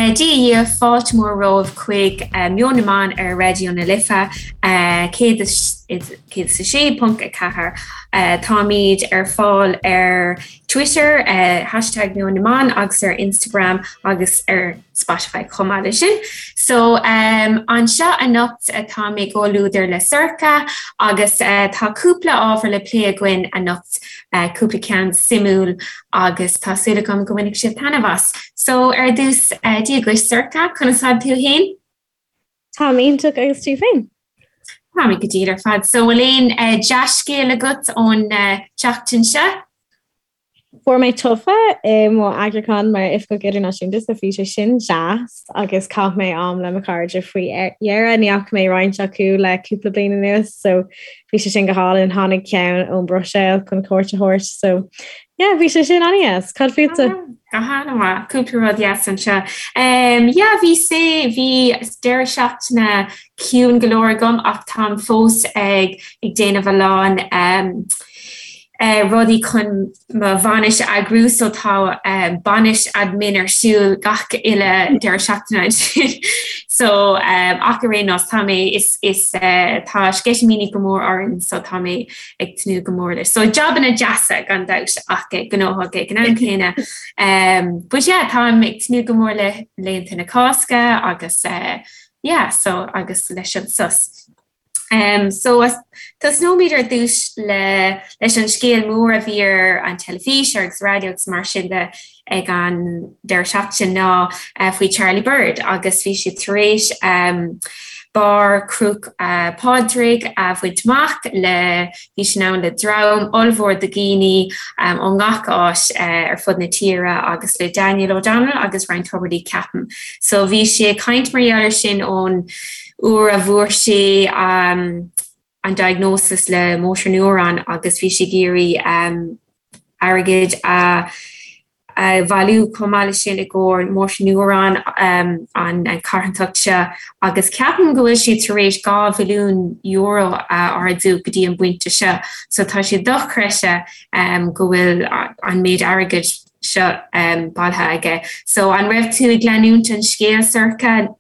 Dia dhaoibh, fáilte mhór romhaibh chuig Meon na mBan ar Raidió na Life 106.4. Táimid ar fáil ar Twitter, hashtag Meon na mBan agus ar Instagram agus ar Spotify chomh maith leis sin. So anseo anocht tá mé i gcomhluadar le Sorcha agus tá cúpla ábhar le plé againn anocht, cúpla ceann suimiúil agus tá súil agam go mbainfidh sibh taitneamh as. So ar dtús, Dia dhuit Sorcha, conas tá tú fhéin? Táim iontach agus tú féin? Tá mé go diail ar fad. So bhfuil aon dea-scéal agat ón tseachtain seo? Fuair mé tofa i mo eagrúchán mar Oifigeach Idirnáisiúnta so bhí sé sin deas agus chaith mé am le mo chairde faoi dheireadh. Ní fhaca mé roinnt acu le cúpla bliain anuas so bhí sé sin go hálainn. Tháinig ceann ón Bhruiséil chun cuairt a thabhairt so yeah bhí sé sin an-dheas. Cad fútsa? Go han-mhaith. Cúpla rud deas anseo. Yeah bhí sé bhí deireadh seachtaine ciúin go leor agam ach táim fós ag ag déanamh a lán rudaí chun mo bhainis a eagrú so tá bainis admin ar siúl gach uile deireadh seachtaine ansin so ach ar aon nós tá mé is is tá sceitimíní go mór orainn so tá mé ag tnúth go mór leis. So jabanna deasa gan dabht ach gnóthach ag an am céanna. But yeah táim ag tnúth go mór le laethanta na Cásca agus yeah so agus leis an sos. Um, so tosnóimid ar dtús le leis an scéal mór a bhí ar an teilifís agus raidió agus mar sin de ag an deireadh seachtaine ná uh, faoi Charlie Bird agus bhí siad tar éis um, barr Chnoc uh, Pádraig a bhaint amach le bhí sin ann le dream ollmhór de dhaoine um, ó ngach áit uh, ar fud na tíre agus le Daniel O'Donnell agus Ryan Tubridy ceapaim. So bhí sé ag caint mar gheall air sin ón uair a bhfuair sé an diagnosis le motor neuron agus bhí sé ag iarraidh airgead a bhailiú chomh maith leis sin i gcomhair motor neuron an carthanacht seo agus ceapaim go bhfuil siad tar éis €2 mhilliún a ardú go dtí an bpointe seo so tá sé dochreidte go bhfuil an méid airgid seo bailithe aige. So an raibh tú ag leanúint an scéal Sorcha?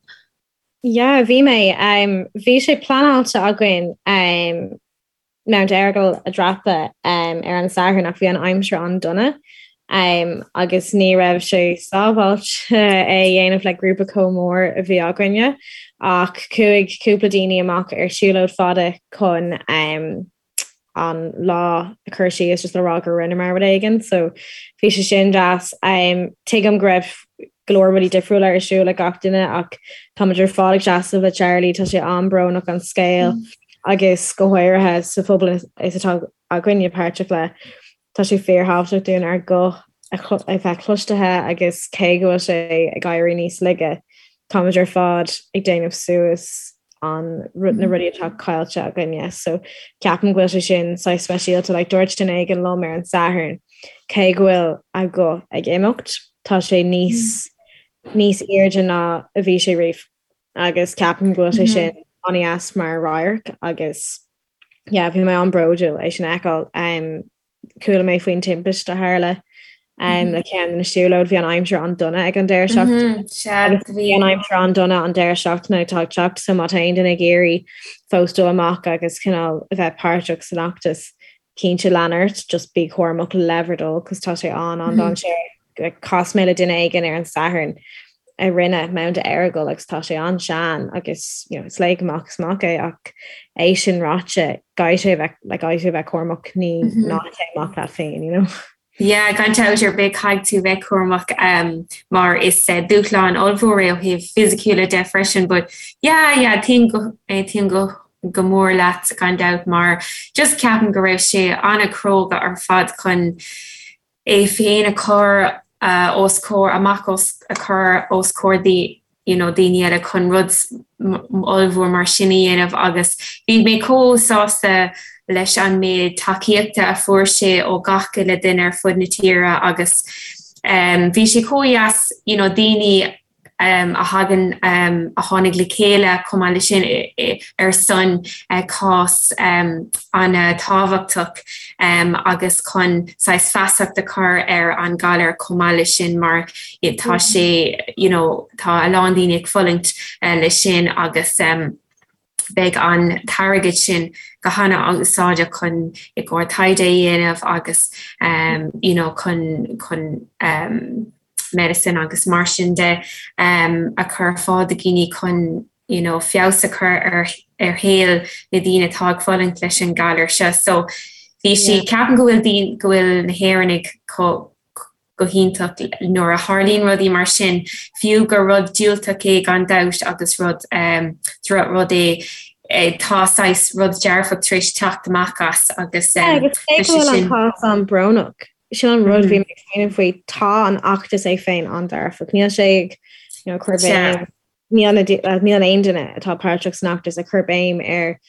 Yeah, bhí mé. Bhí sé pleanáilte againn Mount Errigal a dhreapadh ar an Satharn ach bhí an aimsir an-dona agus ní raibh sé sábháilte é a dhéanamh le grúpa chomh mór a bhí againne ach chuaigh cúpla daoine amach ar siúlóid fada chun an lá a chur síos just le rá gur rinneamar rud éigin so bhí sé sin deas. Tuigim go raibh go leor rudaí difriúla ar siúl ag gach duine ach táimid ar fad ag seasamh le Charlie, tá sé an-bhrónach an scéal agus go háirithe sa phobal is atá againne páirteach le. Tá sé fíorthábhachtach dúinn ár guth a bheith cloistithe agus cé go bhfuil sé ag éirí níos laige, táimid ar fad ag déanamh suas an na rudaí atá caillte againne. So ceapaim go bhfuil sé sin saghas speisialta. Like dúirt duine éigin liom ar an Satharn cé go bhfuil a ghuth ag imeacht, tá sé níos níos airde ná a bhí sé riamh. Agus ceapaim go bhfuil sé sin an-deas mar radharc agus yeah, bhí mé an-bhródúil é sin a fheiceáil. Um, chuala mé faoin timpiste a tharla um, le ceann de na siúlóid, bhí an aimsir an-dona ag an deireadh seachtaine. Agus bhí an aimsir an-dona an deireadh seachtaine atá ag teacht, so má tá aon duine ag iarraidh fós dul amach agus cineál a bheith páirteach san fheachtas, cinnte lean ort, just bí cúramach le bhur dtoil, cos tá sé an-an-dainséarach. Chas mé le duine éigin ar an Satharn a rinne Mount Errigal agus tá sé an-sean agus you know, is léig amach is amach é ach é sin ráite caithfidh sé bheith like, caithfidh sé bheith cúramach ní mm -hmm. ná téigh amach leat féin, you know. Yeah, gan dabht ar bith caithfidh tú bheith cúramach um, mar is uh, dúshlán ollmhór é ó thaobh fisiciúla de freisin, but yeah, yeah, aontaím go, aontaím go go mór leat gan dabht mar just ceapaim go raibh sé an-chróga ar fad chun é féin a chur os comhair, amach os, a chur os comhair you know daoine eile chun rud ollmhór mar sin a dhéanamh agus bhí mé chomh sásta leis an méid tacaíochta a fuair sé ó gach uile duine ar fud na tíre agus um, bhí sé chomh dheas you know, daoine. a thagann, a tháinig le chéile chomh maith leis sin ar son cás an-tábhachtach agus chun saghas feasacht a chur ar an galar chomh maith leis sin mar tá sé, you know, tá a lán daoine ag fulaingt leis sin agus beidh an t-airgead sin go hana-úsáideach chun i gcomhair taighde a dhéanamh agus you know chun chun medicine agus mar sin de a chur ar fáil do dhaoine chun you know feabhas a chur ar ar shaol na daoine atá ag fulaingt leis an galar seo. So bhí sí ceapaim go bhfuil daoine go bhfuil na hÉireannaigh chomh go hiontach nuair a tharlaíonn rudaí mar sin, fiú gur rud diúltach é gan dabht agus rud droch-rud é, tá saghas rud dearfach tar éis teacht amach as agus tá sé sin. An cás an-bhrónach, sin an rud bhí mé ag smaoineamh faoi, tá an fheachtas é féin an-dearfach, níl sé ag you know, cur béim, níl aon duine atá páirteach san fheachtas ag cur béim ar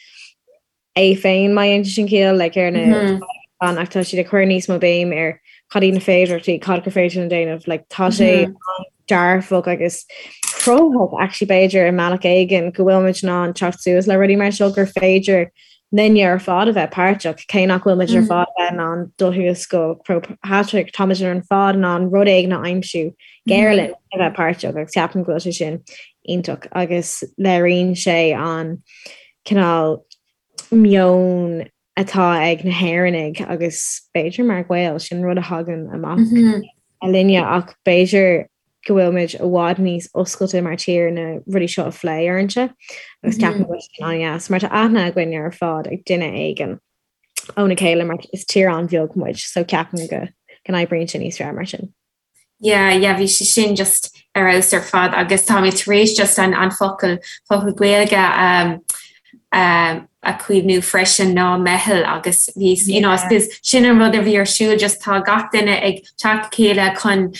é féin má dhéanann sin ciall, like, ar na an ach tá siad ag cur níos mó béim ar cad iad na féidearthachtaí, cad gur féidir linn déanamh, like, tá sé dearfach agus cruthaitheach actually b'fhéidir i mbealach éigin go bhfuil muid in ann teacht suas le rudaí mar seo gur féidir linne ar fad a bheith páirteach, cé nach bhfuil muid ar fad a bheith in ann dul thuas go Croagh Patrick, tá muid ar fad in ann rud éigin a aimsiú gur linn a bheith páirteach agus ceapaim go bhfuil sé sin iontach agus léiríonn sé an cineál meon atá ag na hÉireannaigh agus b'fhéidir mar Ghaeil, sin rud a thagann amach linne ach b'fhéidir go bhfuil muid i bhfad níos oscailte mar tír na rudaí seo a phlé uaireanta agus ceapaim go bhfuil sin an-dheas mar tá aithne againn ar fad ag duine éigin óna chéile mar is tír an-bheag muid so ceapaim go n-oibríonn sé níos fearr mar sin. Yeah, yeah, bhí sé sin just ar fheabhas ar fad agus tá mé tar éis just an, an focal, focal Gaeilge um, um, a chuimhniú freisin ná meitheal agus bhí, you know, I suppose sin an rud a bhí ar siúl just tá gach duine ag teacht le chéile chun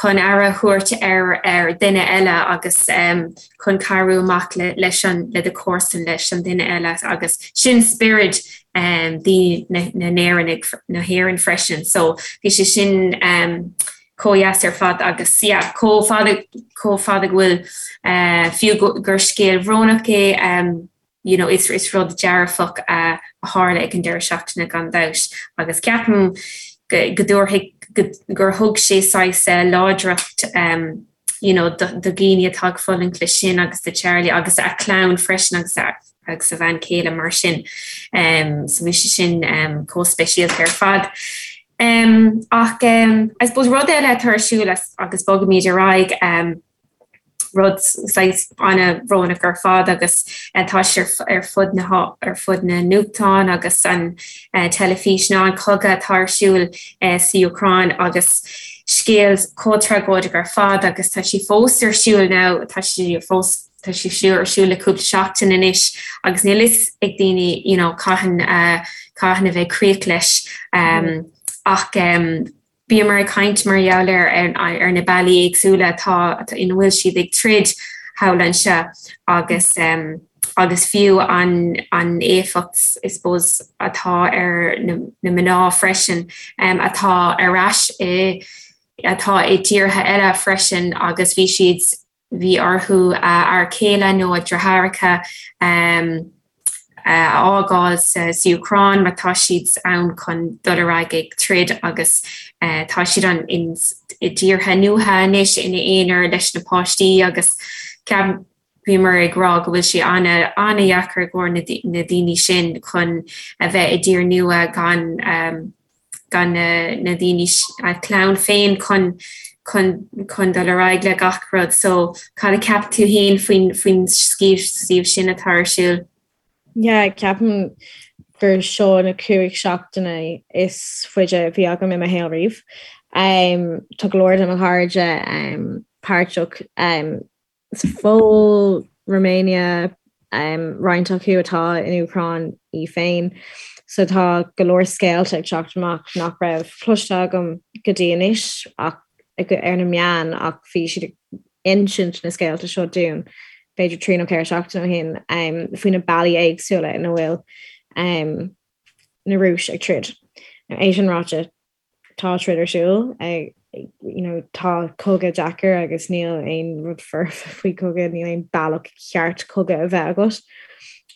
chun aire a thabhairt ar ar duine eile agus um, chun cabhrú amach le, leis an le do chomharsan leis an duine eile agus sin spiorad um, daoine na, na nÉireannaigh na hÉireann freisin. So bhí sé sin um, chomh dheas ar fad agus yeah, chomh fada chomh fada go bhfuil uh, fiú gur scéal bhrónach é um, you know, is, is rud dearfach a, a tharla ag an deireadh seachtaine gan dabht agus ceapaim go, go dtabharfaidh go, gur thug sé saghas uh, láidreacht um, you know, do, do dhaoine atá ag fulaingt leis sin agus do Charlie agus a chlann freisin agus a, agus a bhean chéile mar sin. Um, so bhí sé sin um, chomh speisialta ar fad. Um, ach um, I suppose rud eile atá ar siúl agus bogaimid ar aghaidh um, rud saghas an-bhrónach ar fad agus tá sé ar fud na ar fud na nuachtán agus an teilifís ná an cogadh atá ar siúl sa Úcráin agus scéal chomh tragóideach ar fad agus tá sé fós ar siúl now tá sé fós tá sé siúr ar siúl le cúpla seachtain anois agus níl fhios ag daoine you know cathain cathain a bheidh críoch leis um, ach um, Bhíomar ag caint mar gheall ar ar na bealaí éagsúla atá ina bhfuil siad ag troid thall anseo agus agus fiú an an éifeacht I suppose atá ar na na mná freisin atá ar ais i atá i dtíortha eile freisin agus bhí siad bhí orthu a fhear céile nó a deartháireacha a fhágáil sa Úcráin mar tá siad ann chun dul ar aghaidh ag troid agus tá siad an i dtíortha nua anois ina aonar leis na páistí agus bhíomar ag rá go bhfuil sé an-an-dheacair i gcomhair na daoine sin chun a bheith i dtír nua gan gan na daoine, a clann féin chun chun chun dul ar aghaidh le gach rud. So cad a cheap tú féin faoin faoin suíomh sin atá ar siúl? Yeah, ceapaim gur seo na 5 seachtaine is faide a bhí agam i mo shaol riamh. Um, tá go leor de mo chairde um, páirteach um, Sa Phóil, Romania, roinnt acu atá in Úcráin í féin. So tá go leor scéalta ag teacht amach nach raibh cloiste agam go dtí anois ach ar na meáin ach bhí siad ag insint na scéalta seo dúinn b'fhéidir 3 nó 4 seachtain ó shin faoi na bealaí éagsúla ina bhfuil na Rúis ag troid. Now é sin ráite. Tá troid ar siúl, you know, tá cogadh deacair agus níl aon rud foirfe faoi cogadh, níl aon bealach ceart cogadh a bheith agat.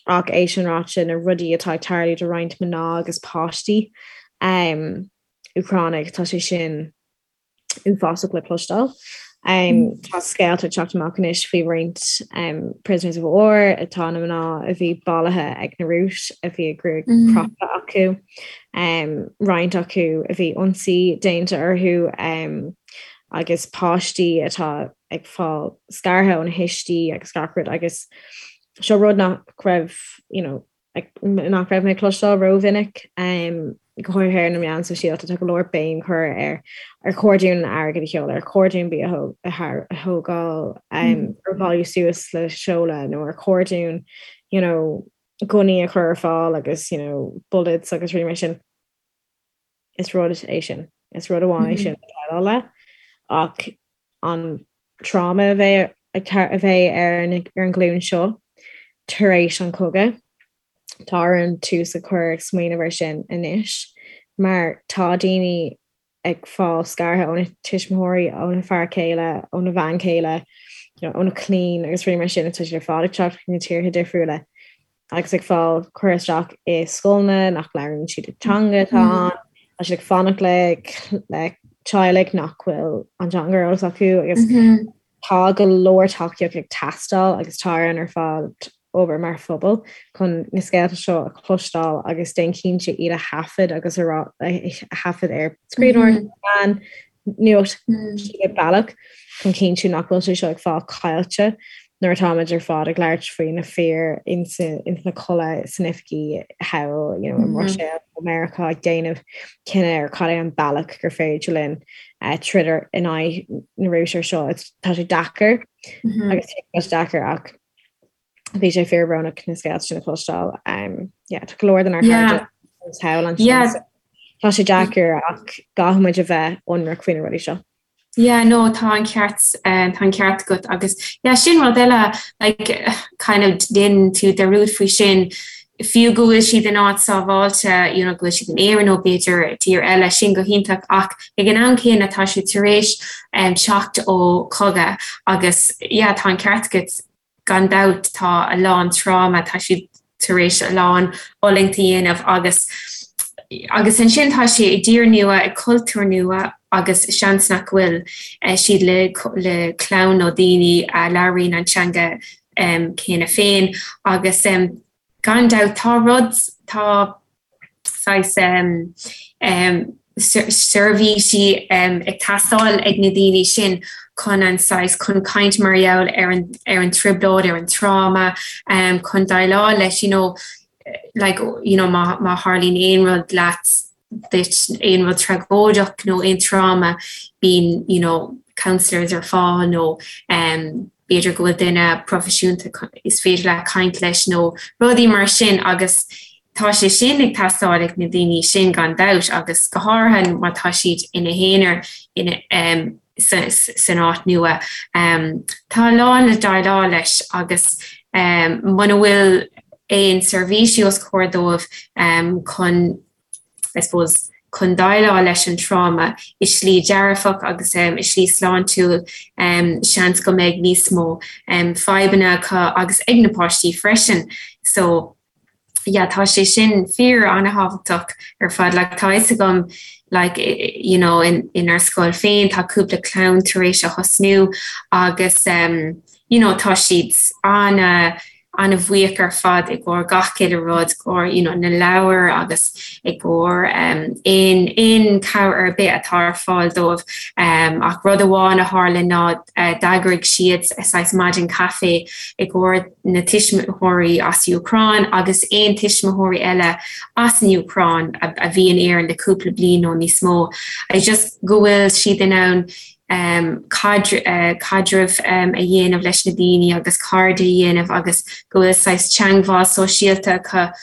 Ach é sin ráite, na rudaí atá ag tarlú do roinnt mná agus páistí um, Úcránaigh, tá sé sin uafásach le cloisteáil. Tá scéalta ag teacht amach anois faoi roinnt prisoners of war atá na mná a bhí bailithe ag na Rúis a bhí a gruaig crochta acu, roinnt acu a bhí ionsaí déanta orthu agus páistí atá ag fáil scartha óna thuistí agus gach rud agus seo rud nach raibh you know, nach raibh mé ag cloisteáil rómhinic, go háirithe ar na meáin sóisialta. Tá go leor béim curtha ar ar chóir dúinn airgead a sheoladh, ar chóir dúinn bia a thógáil, ar bhailiú suas le seoladh nó ar chóir dúinn you know gunnaí a chur ar fáil agus you know bullets agus rudaí mar sin. Is rud é sin. Is rud amháin é sin le déileáil le ach an tráma a bheidh a bheidh ar an ar an ghlúin seo tar éis an chogaidh, tá orainn tús a chur ag smaoineamh ar sin anois mar tá daoine ag fáil scartha óna tuismitheoirí, óna fear céile, óna bhean chéile, óna clainn agus rudaí mar sin, tá siad ar fad ag teacht chuig na tíortha difriúla. agus ag fáil cur isteach i scoileanna nach labhraíonn siad an teanga atá ann, tá siad ag fanacht le le teaghlaigh nach bhfuil an teanga ar eolas acu agus tá go leor tacaíocht ag teastáil agus tá orainn ar fad obair mar phobal chun na scéalta seo a chloisteáil agus déan cinnte iad a thaifead agus a rá a thaifead ar scríbhneoireacht meán nuacht cibé bealach chun cinntiú nach bhfuil sé seo ag fáil caillte nuair atáimid ar fad ag labhairt faoi na fir ins na culaith san oifigí thall you know, i mBruiséil nó Meiriceá ag déanamh cinneadh ar cad é an bealach gur féidir linn troid in aghaidh na Rúise ar seo. Tá sé deacair agus tá sé deacair ach bhí sé fíorbhrónach na scéalta sin a chloisteáil. Yeah, tá go leor den ár chairde thall ansin. Tá sé deacair ach caithfidh muid a bheith ionraic faoi na rudaí seo. Yeah, no, tá an ceart, tá an ceart agat agus yeah, sin rud eile, like, kind of déanann tú dearúd faoi sin, fiú go bhfuil siad in áit sábháilte, you know, go bhfuil siad in Éirinn nó b'fhéidir tír eile, sin go hiontach ach ag an am céanna tá siad tar éis teacht ó chogadh agus yeah, tá an ceart agat, Gan dabht tá a lán tráma, tá siad tar éis a lán fhulaingt a dhéanamh agus agus ansin tá sé i dtír nua, i cultúr nua agus seans nach bhfuil siad le le clann nó daoine a labhraíonn an teanga céanna féin agus gan dabht tá rud, tá saghas seirbhísí ag teastáil ag na daoine sin chun an saghas, chun caint mar gheall ar an ar an trioblóid, ar an tráma, chun déileáil leis, you know, like, you know, má má tharlaíonn aon rud leat, duit, aon rud tragóideach nó aon tráma, bíonn, you know, counsellors ar fáil nó b'fhéidir go bhfuil duine proifisiúnta is féidir leat caint leis nó rudaí mar sin agus tá sé sin ag teastáil ag na daoine sin gan dabht agus go háirithe má tá siad ina n-aonar ina san áit nua. Tá a lán le déileáil leis agus muna bhfuil aon seirbhísí os comhair dóibh chun I suppose, chun déileáil leis an tráma i slí dearfach agus i slí sláintiúil, seans go mbeidh níos mó fadhbanna acu agus ag na páistí freisin. So, yeah, tá sé sin fíor an-thábhachtach ar fad. Like, tá fhios agam, like, you know, in, inár scoil féin, tá cúpla clann tar éis a thosnú agus, you know, tá siad ana, an-bhuíoch ar fad i gcomhair gach uile rud, i gcomhair you know na leabhair agus i gcomhair aon aon cabhair ar bith atá ar fáil dóibh. Ach rud amháin a tharla ná d'eagraigh siad saghas maidin caife i gcomhair na tuismitheoirí as Úcráin agus aon tuismitheoirí eile as an Úcráin a bhí in Éirinn le cúpla bliain nó níos mó. Just go bhfuil siad in ann caidreamh a dhéanamh leis na daoine agus cairde a dhéanamh agus go bhfuil saghas teangmháil sóisialta acu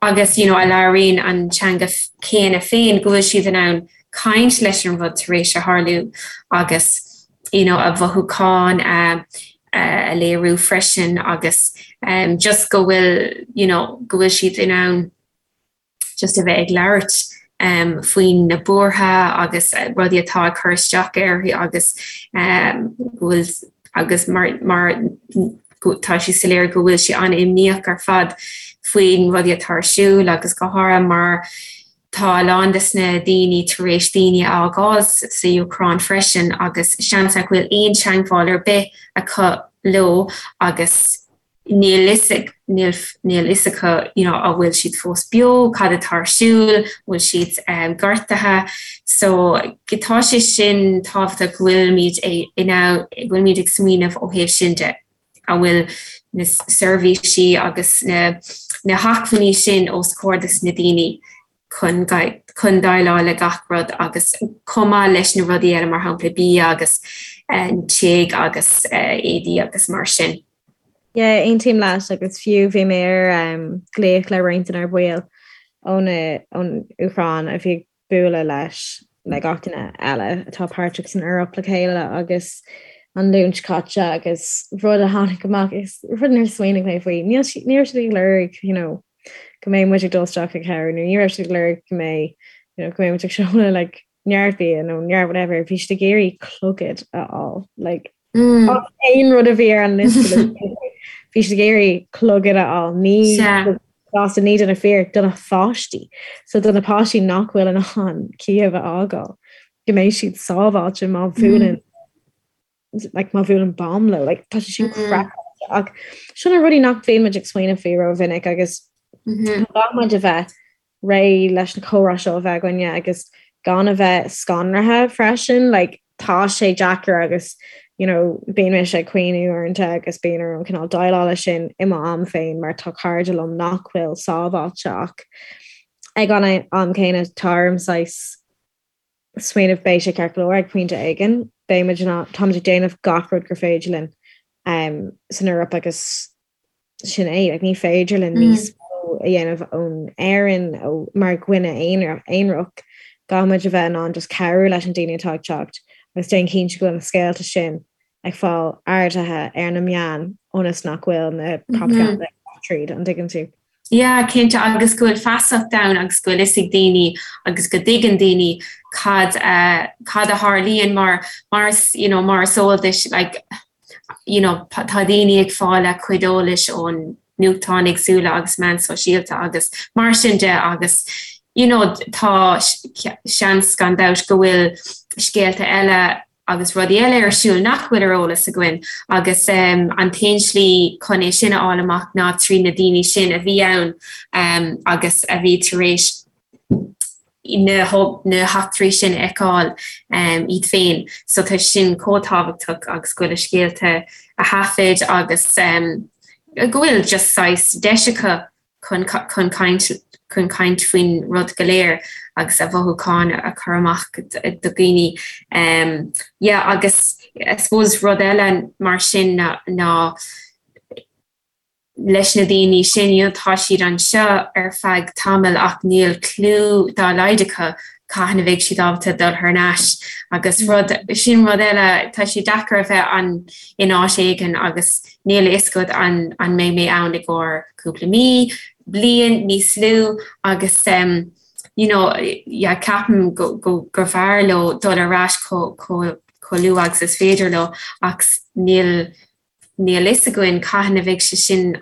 agus you know a labhraíonn an teanga céanna féin, go bhfuil siad in ann caint leis an rud tar éis a tharlú agus you know a mhothúcháin a a léiriú freisin agus just go bhfuil you know go bhfuil siad in ann just a bheith ag labhairt. faoi na buartha agus rudaí atá ag cur isteach uirthi agus go bhfuil agus mar mar tá sé soiléir go bhfuil sí an-imníoch ar fad faoin rudaí atá ar siúl agus go háirithe mar tá a lán des na daoine tar éis daoine a fhágáil sa Úcráin freisin agus seans nach bhfuil aon teagmháil ar bith acu leo agus níl fhios ag, níl, níl fhios acu you know an bhfuil siad fós beo, cad atá ar siúl, bhfuil siad gortaithe. So tá sé sin tábhachtach go bhfuilimid in ann, go bhfuilimid ag smaoineamh ó thaobh sin de, an bhfuil na seirbhísí agus na, na hacmhainní sin os comhair dos na daoine chun, chun déileáil le gach rud agus chomh maith leis na rudaí eile mar shampla bia agus tigh agus éadaí agus mar sin. Yeah, aontaím leat agus fiú bhí mé ar glaoch le roinnt denár bhaill ón ón Úcráin a bhí ag bualadh leis le gach duine eile atá páirteach san Eoraip le chéile agus an Luan seo caite agus rud a tháinig amach is rud nár smaoinigh mé faoi níl ní raibh siad ag lorg you know, go mbeidh muid ag dul isteach ag cabhrú nó ní raibh siad ag lorg go mbeidh you know, go mbeidh muid ag seoladh like, neart bia nó neart whatever bhí siad ag iarraidh clogad a fháil like, mm. aon rud a bhí ar an liosta bhí siad ag iarraidh clogad a fháil ní gasta ní do na fir do na pháistí so do na páistí nach bhfuil in ann Kiev a fhágáil go mbeidh siad sábháilte má bhuaileann like má bhuaileann bomb leo like tá sé sin craiceáilte ach sin na rudaí nach mbíonn muid ag smaoineamh faoi rómhinic agus caithfidh muid a bheith réidh leis na comhrá seo a bheith againne agus gan a bheith scanraithe freisin like tá sé deacair agus you know bíonn mise ag caoineadh uaireanta agus bíonn orm cineál déileáil leis sin i mo am féin mar tá cairde liom nach bhfuil sábháilte ach ag an am céanna tá orm saghas smaoineamh beidh sé ceart go leor ag pointe éigin beidh muid in ann táimid ag déanamh gach rud gur féidir linn um, san Eoraip agus sin é like, ní féidir linn níos mó a dhéanamh ón Éirinn ó mar dhuine aonarach caithfidh muid a bheith in ann just cabhrú leis an daoine atá ag teacht agus déan cinnte go bhfuil na scéalta sin ag fáil ardaithe ar na meáin ionas nach bhfuil na propaganda tríd an dtuigeann tú. Yeah, cinnte, agus go bhfuil feasacht ann agus go bhfuil fhios ag daoine agus go dtuigeann daoine cad a cad a tharlaíonn mar mar is you know mar is eol duit like you know tá daoine ag fáil a cuid eolais ón nuachtáin éagsúla agus meáin sóisialta agus mar sin de agus you know tá seans gan dabht go bhfuil scéalta eile agus rudaí eile ar siúl nach bhfuil ar eolas againn agus an t-aon slí chun é sin a fháil amach ná trí na daoine sin a bhí ann agus a bhí tar éis na heachtraí sin a fheiceáil iad féin. So tá sin chomh tábhachtach agus go bhfuil a scéalta á thaifead agus go bhfuil just saghas deis acu chun chun caint chun caint faoin rud go léir agus a mhothúcháin a chur amach do dhaoine. Yeah agus I suppose rud eile mar sin ná ná leis na daoine sin you know tá siad anseo ar feadh tamaill ach níl clue dá laghad acu cathain a bheidh siad ábalta dul thar n-ais agus rud sin rud eile tá sé deacair a bheith an in áit éigin agus níl a fhios agat an an mbeidh mé ann i gcomhair cúpla mí, bliain, níos lú agus you know yeah ceapaim go go gur bhfearr leo dul ar ais chomh chomh chomh luath agus is féidir leo ach níl níl fhios againn cathain a bheidh sé sin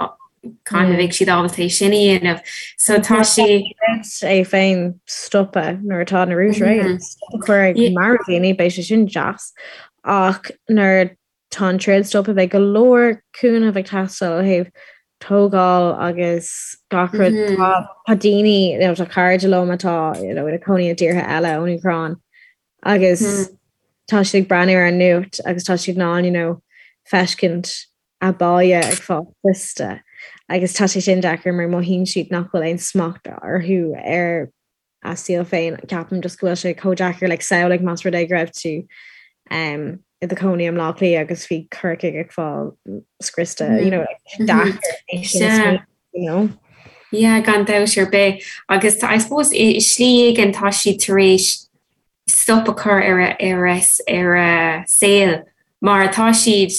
cathain a bheidh siad ábalta é sin a dhéanamh. So tá sé. é féin stopadh nuair atá na Rúisigh réidh stop a chur ag marú daoine beidh sé sin deas ach nuair tá an troid stoptha beidh go leor cúnamh ag teastáil ó thaobh tógáil agus gach rud. Tá tá daoine you know, tá cairde liom atá you know, ina cónaí i dtíortha eile ón Úcráin agus tá siad ag breathnú ar an nuacht agus tá siad in ann you know, feiscint a baile ag fáil scriosta agus tá sé sin deacair mar mothaíonn siad nach bhfuil aon smacht orthu ar a saol féin. Ceapaim just go bhfuil sé chomh deacair like samhlaigh más rud é go raibh tú um, i do chónaí i mBleá Cliath agus bhí Corcaigh ag fáil scriosta you know, like, deacair é sin a smaoineamh, you know. Yeah, gan dabht ar bith. Agus tá, I suppose, i slí éigin tá siad tar éis stop a chur ar a, ar a, ar a saol mar tá siad,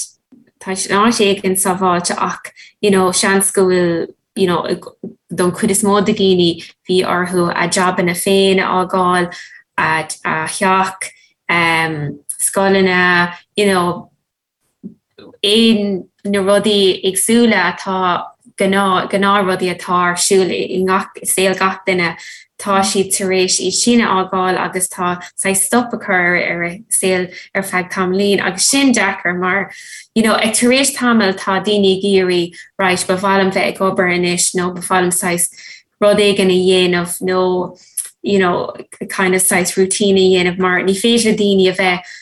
tá siad in áit éigin sábháilte ach, you know, seans go bhfuil. you know, don chuid is mó de dhaoine bhí orthu a jabanna féin a fhágáil, a theach, um, scoileanna, you know, aon na rudaí éagsúla atá gnáth gnáthrudaí atá ar siúl i ngach i saol gach duine, tá siad tar éis iad sin a fhágáil agus tá saghas stop a chur ar a saol ar feadh tamaillín agus sin deacair mar you know ag tar éis tamaill tá daoine ag iarraidh right ba mhaith liom bheith ag obair anois nó ba mhaith liom saghas rud éigin a dhéanamh nó you know kind of saghas routine a dhéanamh mar ní féidir le daoine a bheith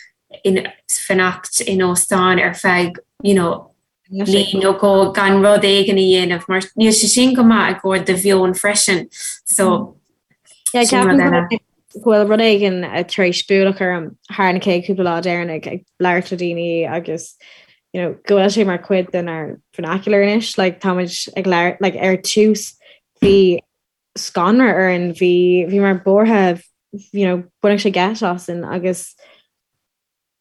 in fanacht in óstán ar feadh you know bliain nó dhó gan rud éigin a dhéanamh mar níl sé sin go maith i gcomhair do mheon freisin so Yeah, sin rud eile. go bhfuil rud éigin tar éis bualadh orm thar na chéad cúpla lá deireanach ag labhairt le daoine agus you know, go bhfuil sé mar chuid denár vernacular anois, like, táimid ag labhairt like, ar tús bhí scanradh orainn, bhí bhíomar buartha you know, baineadh sé geit asainn agus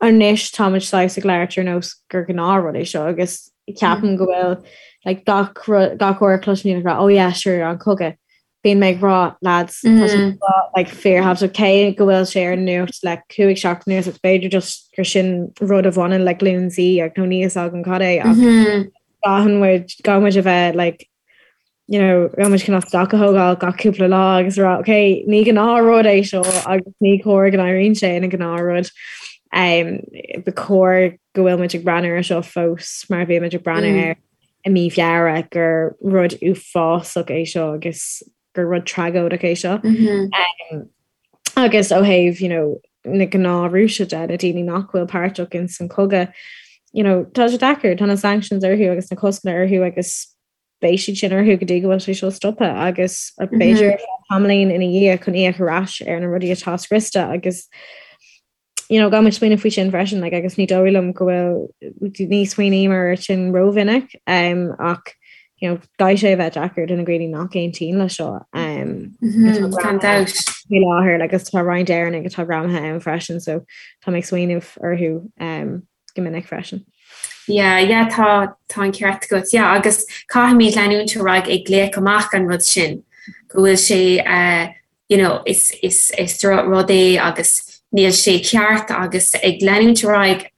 anois táimid saghas ag labhairt ar nós gur gnáthrud é seo agus ceapaim go bhfuil like gach rud gach uair a chloisim daoine ag rá oh yeah sure an cogadh bíonn mé ag rá lads tá sé seo like fíorthábhachtach cé go bhfuil sé ar an nuacht le 5 seachtain anuas agus b'fhéidir just gur sin rud a bhaineann le glúin Z ach nó níl a fhios agam cad é ach caithfidh muid caithfidh muid a bheith like you know, caithfidh muid cineál stoc a thógáil gach cúpla lá agus rá, ok, ní gnáthrud é seo agus ní cóir go n-éiríonn sé ina ghnáthrud. Um, ba chóir go bhfuil muid ag breathnú ar seo fós mar a bhí muid ag breathnú mm. air i mí Feabhra gur rud uafásach é seo agus gur rud tragóideach é seo. Mm -hmm. um, agus ó thaobh you know, na gnáth Rúisigh de, na daoine nach bhfuil páirteach in san cogadh, you know, tá sé deacair, tá na sanctions orthu agus na coscanna orthu agus beidh siad sin orthu go dtí go bhfuil sé seo stoptha agus b'fhéidir tamaillín ina dhiaidh chun íoc ar ais ar na rudaí atá scriosta agus you know, caithfidh muid smaoineamh faoi sin freisin like, agus ní dóigh liom go bhfuil ní smaoiním air sin rómhinic um, ach you know, caithfidh sé a bheith deacair do na daoine nach aontaíonn le seo um, gan dabht. faoi láthair agus tá roinnt Éireannaigh atá greamaithe ann freisin so tá mé ag smaoineamh orthu um, go minic freisin. Yeah, yeah, tá tá an ceart agat. Yeah, agus caithfimid leanúint ar aghaidh ag glaoch amach an rud sin, go bhfuil sé uh, you know, is, is, is rud é agus níl sé ceart agus ag leanúint ar aghaidh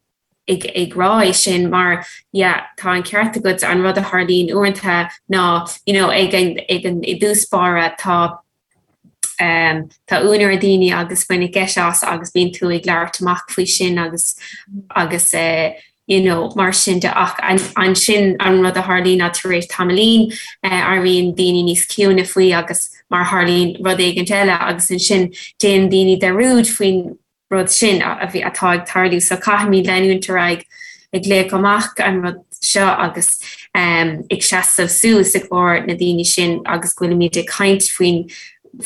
ag, ag rá é sin mar yeah, tá an ceart agat an rud a tharlaíonn uaireanta ná you know, ag an, ag an i dtús báire tá Tá ionadh ar dhaoine agus baineadh geit as agus bíonn tú ag labhairt amach faoi sin agus agus you know mar sin de ach ansin an rud a tharlaíonn ná tar éis tamaillín éiríonn daoine níos ciúine faoi agus mar tharlaíonn rud éigint eile agus ansin déanann daoine dearúd faoin rud sin a bhí, atá ag tarlú. So caithfimid leanúint ar aghaidh ag glaoch amach an rud seo agus ag seasamh suas i gcomhair na daoine sin agus go bhfuilimid ag caint faoin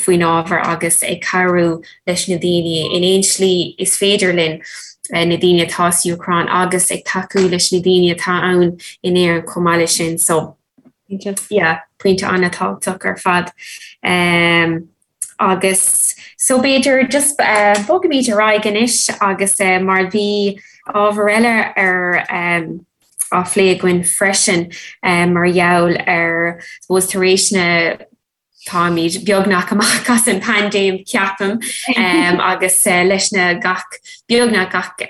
faoin ábhar agus ag cabhrú leis na daoine in aon slí is féidir linn, na daoine atá sa Úcráin agus ag tacú leis na daoine atá ann in Éirinn chomh maith leis sin. So yeah, pointe an-tábhachtach ar fad. Um, Agus so b'fhéidir just bogfaimid ar aghaidh anois agus mar bhí ábhar eile ar á phlé againn freisin mar gheall ar suppose tar éis na táimid beagnach amach as an paindéim ceapaim agus leis na gach beagnach gach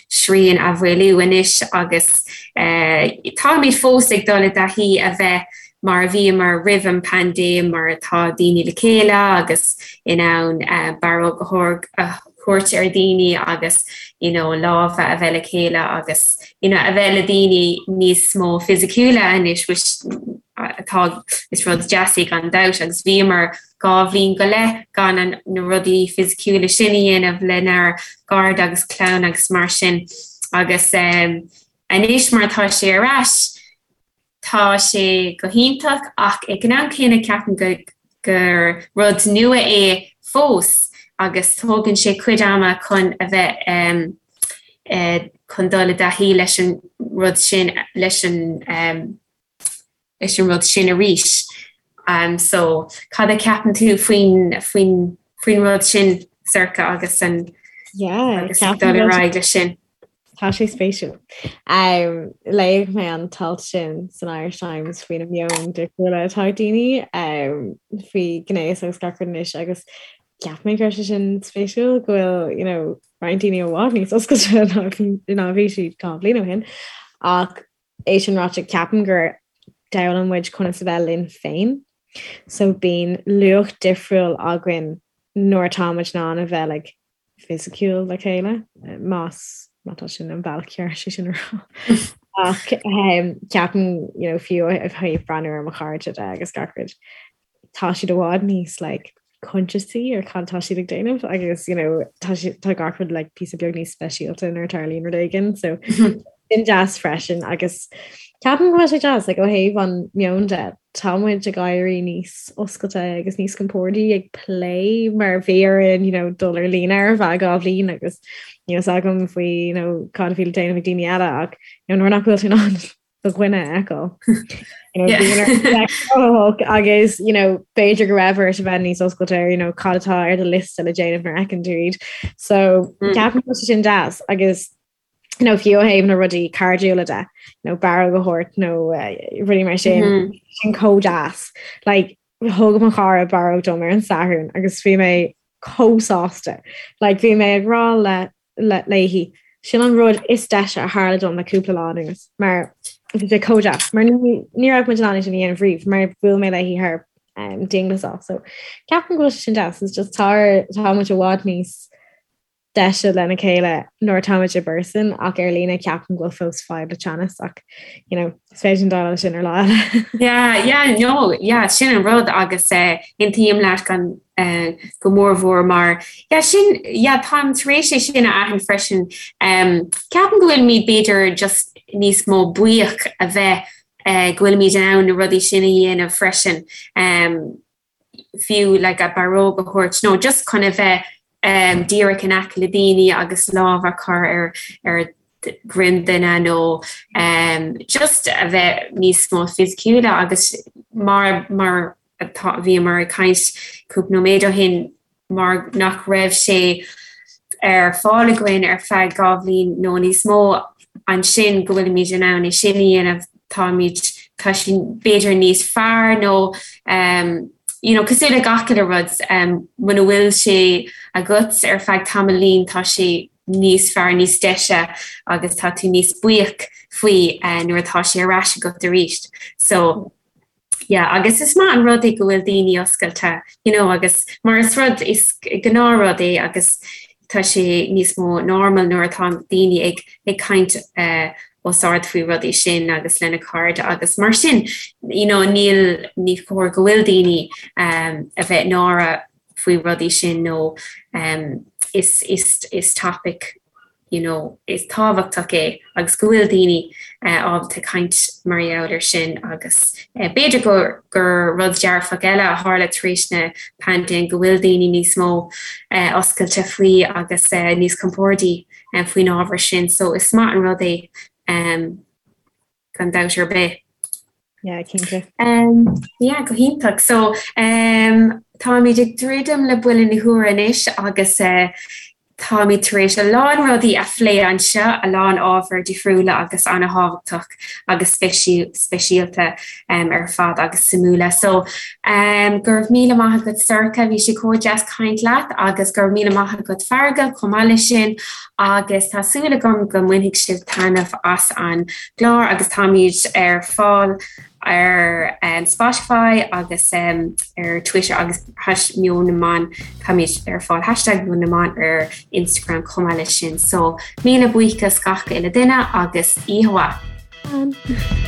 srian a mhaolú anois agus táimid fós ag dul i dtaithí a bheith mar a bhíomar roimh an bpaindéim mar atá daoine le chéile agus in ann barróg a thabhairt ar dhaoine agus you know lámha a bheith le chéile agus you know a bheith le daoine níos mó fisiciúla anois which atá is rud deas é gan dabht agus bhíomar 2 bhliain go leith gan an na rudaí fisiciúla sin a dhéanamh lenár gcairde agus clann agus mar sin agus anois mar atá sé ar ais Tá sé go hiontach ach ag an am céanna ceapaim go gur rud nua é fós agus tógann sé cuid ama chun a bheith chun dul i dtaithí leis an rud sin leis an leis an rud sin arís. So cad a cheapann tú faoin faoin faoin rud sin Sorcha agus an Yeah, agus dul ar aghaidh leis sin? Tá sé spéisiúil. Um, léigh mé an t-alt sin san Irish Times faoi na meoin difriúla atá ag daoine um, faoi gnéas agus gach rud anois agus cheap mé go raibh sé sin spéisiúil go bhfuil you know, roinnt daoine i bhfad níos oscailte ná bhí siad dhá bhliain ó shin. Ach é sin ráite ceapaim gur d'fhoghlaim muid conas a bheith linn féin. So bíonn luach difriúil againn nuair atá muid in ann a bheith like, fisiciúil le chéile, más má tá sin an bealach ceart sé sin a rá. Ach um, ceapaim you know, fiú ó thaobh breathnú ar mo chairde de agus gach rud, tá siad i bhfad níos like, conscious ar cad tá siad ag déanamh agus you know, tá, tá gach rud like, píosa beag níos speisialta nuair a tharlaíonn rud éigin, so sin deas freisin agus ceapaim go bhfuil sé deas like, ó thaobh an meon de tá muid ag éirí níos oscailte agus níos compordaí ag plé mar bhí orainn you know, dul ar líne ar feadh dhá bhliain agus níl a fhios agam faoi you know, cad a bhí le déanamh ag daoine eile ach you know, nuair nach bhfuil tú in ann do dhuine a fheiceáil. You know, yeah. agus you know, b'fhéidir go raibh ort a bheith níos oscailte ar you know, cad atá ar do liosta le déanamh nuair a fheiceann tú iad. So mm. ceapaim go bhfuil sé sin deas agus you know, fiú ó thaobh na rudaí cairdiúla de, you know, barróg a thabhairt nó uh, rudaí mar sin, mm -hmm. sin chomh deas. Like, thug mo chara barróg dom ar an Satharn agus bhí mé chomh sásta. Like, bhí mé ag rá le, le, léi, sin an rud is deise a tharla dom le cúpla lá anuas, mar bhí sé chomh deas, mar ní, ní raibh muid in ann é sin a dhéanamh riamh, mar bhuail mé léi thar um, dianghlasáil. So ceapaim go bhfuil sé sin deas, it's just tá, tá muid i bhfad níos deise lena chéile nuair atáimid i bpearsan ach ar líne ceapaim go bhfuil fós fadhb le teannas ach you know is féidir linn déileáil leis sin ar lá eile. Yeah, yeah, no, yeah, sin an rud agus eh, aontaím leat gan eh, go mór mhór mar yeah, sin yeah, táim tar éis é sin a aithint freisin. Um, ceapaim go bhfuilimid b'fhéidir just níos mó buíoch a bheith eh, go bhfuilimid in ann na rudaí sin a dhéanamh freisin. Um, fiú like a barróg a thabhairt nó just chun a bheith um, díreach in aice le daoine agus lámh a chur ar ar dhroim duine nó um, just a bheith níos mó fisiciúla agus mar mar atá bhíomar ag caint cúpla nóiméad ó shin mar nach raibh sé ar fáil againn ar feadh 2 bhliain nó níos mó, ansin go bhfuilimid in ann é sin a dhéanamh, táimid, tá sé b'fhéidir níos fearr nó um, you know, cosúil le gach uile rud, um, muna bhfuil sé agat ar feadh tamaillín tá sé níos fearr, níos deise agus tá tú níos buíoch faoi uh, nuair atá sé ar ais agat arís. So, Yeah, agus is maith an rud é go bhfuil daoine oscailte, you know, agus mar is rud, is gnáthrud é agus tá sé níos mó normal nuair atá daoine ag, ag caint eh, os ard faoi rudaí sin agus lena cairde agus mar sin, you know, níl, ní chóir go bhfuil daoine um, a bheith náireach faoi rudaí sin nó um, is, is, is topic you know, is tábhachtach é agus go bhfuil daoine ábalta caint mar gheall air sin agus b'fhéidir gur gur rud dearfach eile a tharla tar éis na paindéime go bhfuil daoine níos mó oscailte faoi agus níos compordaí faoin ábhar sin so is maith an rud é gan dabht ar bith. Yeah, cinnte. Um, yeah, go hiontach. So, um, táimid ag druidim le buille na huaire anois agus uh, táimid tar éis a lán rudaí a phlé anseo, a lán ábhar difriúla agus an-thábhachtach agus speisialta um, ar fad agus suimiúla. So, um, go raibh míle maith agat Sorcha, bhí sé chomh deas caint leat agus go raibh míle maith agat Feargal chomh maith leis sin agus tá súil agam go mbainfidh sibh taitneamh as an gclár agus táimid ar fáil ar Spotify agus ar Twitter agus hash Meon na mBan táimid ar fáil hashtag Meon na mBan ar Instagram chomh maith leis sin. So míle buíochas gach uile duine agus oíche mhaith.